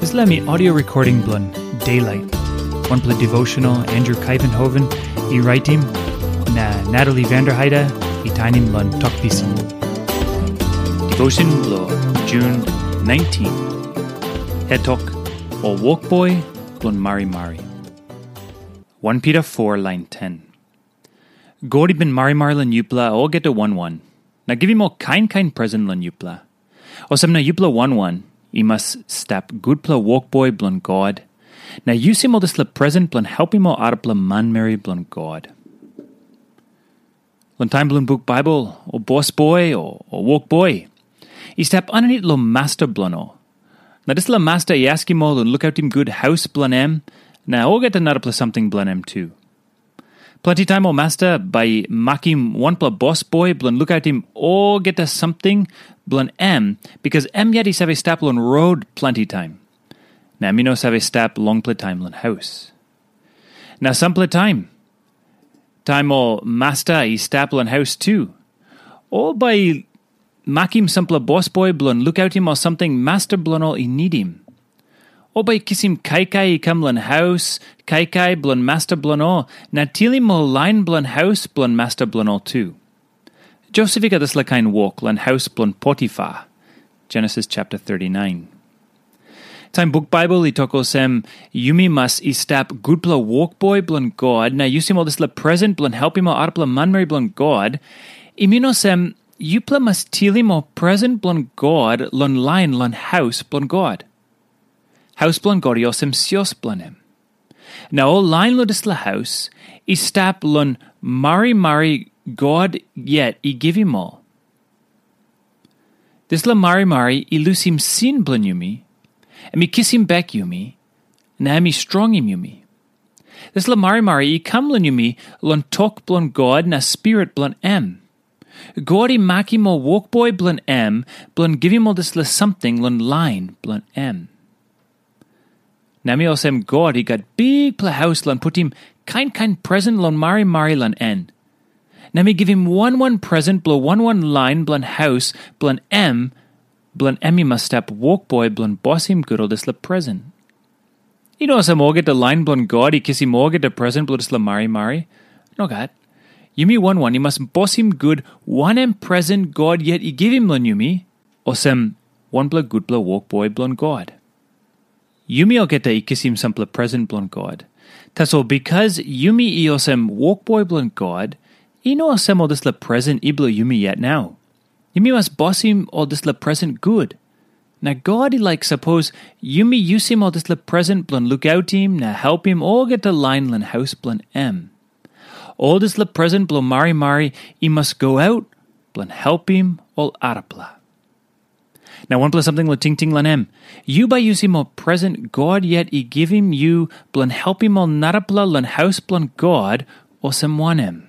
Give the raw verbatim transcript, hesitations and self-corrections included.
Dispela mi audio recording bilong Daylight, wanpela devotional Andrew Kaivenhoven i raitim, na Natalie Vanderheide i tainim long Tok Pisin. Devotion bilong Jun nineteen. Hetok, o wokboi bilong marimari. One Peter four lain ten. God i bin marimari long yupela olgeta wan wan, na givim ol kain kain presen long yupela. Olsem na yupela wan wan i mas stap gutpela wokboi bilong God, na yusim ol dispela presen bilong helpim ol arapela manmeri bilong God. Long taim bilong buk Baibel, o bosboi, o, o wokboi, i stap aninit long masta bilong ol. Na dispela masta i askim ol long lukautim gut haus bilong em, na olgeta narapela samting bilong em tu. Planti taim ol masta bai i makim wanpela bosboi bilong lukautim olgeta samting bilong em, bikas em yet i save stap long rot planti taim. Na em i no save stap longpela taim long haus. Na sampela taim, taim ol masta i stap long haus tu, ol bai i makim sampela bosboi bilong lukautim ol samting masta bilong ol i nidim. Ol bai i kisim kaikai i kam long haus, kaikai bilong masta bilong ol, na tilim ol lain bilong haus bilong masta bilong ol tu. Josep i gat dispela kain wok long haus bilong Potifar. Genesis chapter thirty-nine. Taim buk Baibel i tok olsem, yumi mas i stap gutpela wokboi bilong God na yusim ol dispela presen bilong helpim ol arapela manmeri bilong God, i min olsem, yupela mas tilim ol presen bilong God long lain long haus bilong God. Haus bilong God i olsem sios bilong em. Na ol lain long dispela haus i stap long marimari God yet i givim ol. Dispela marimari i lusim sin bilong yumi, em i kisim bek yumi, na em i strongim yumi. Dispela marimari i kam long yumi long tok bilong God na spirit bilong em. God i makim ol wokboi bilong em bilong givim ol dispela samting long lain bilong em. Na mi olsem God i gat bikpela haus long putim kain kain presen long marimari long en. Na mi givim wan wan presen bilong wan wan lain bilong haus bilong em, bilong em i mas stap wokboi bilong bosim gut ol dispela presen. I no olsem olgeta lain bilong God i kisim olgeta presen bilong dispela marimari. Nogat. Yumi wan wan i mas bosim gut wanem presen God yet i givim long yumi, olsem wanpela gutpela wokboi bilong God. Yumi olgeta i kisim sampela presen bilong God. Tasol bikas yumi i olsem wokboi bilong God, i no olsem ol dispela presen i bilong yumi yet nau. Yumi mas bosim ol dispela presen gut. Na God i laik sapos yumi yusim ol dispela presen bilong lukautim na helpim olgeta lain long haus bilong em. Ol dispela presen bilong marimari i mas go aut bilong helpim ol arapela. Na wanpela samting long tingting long em, yu bai yusim ol presen God yet i givim yu bilong helpim ol narapela long haus bilong God, olsem wanem?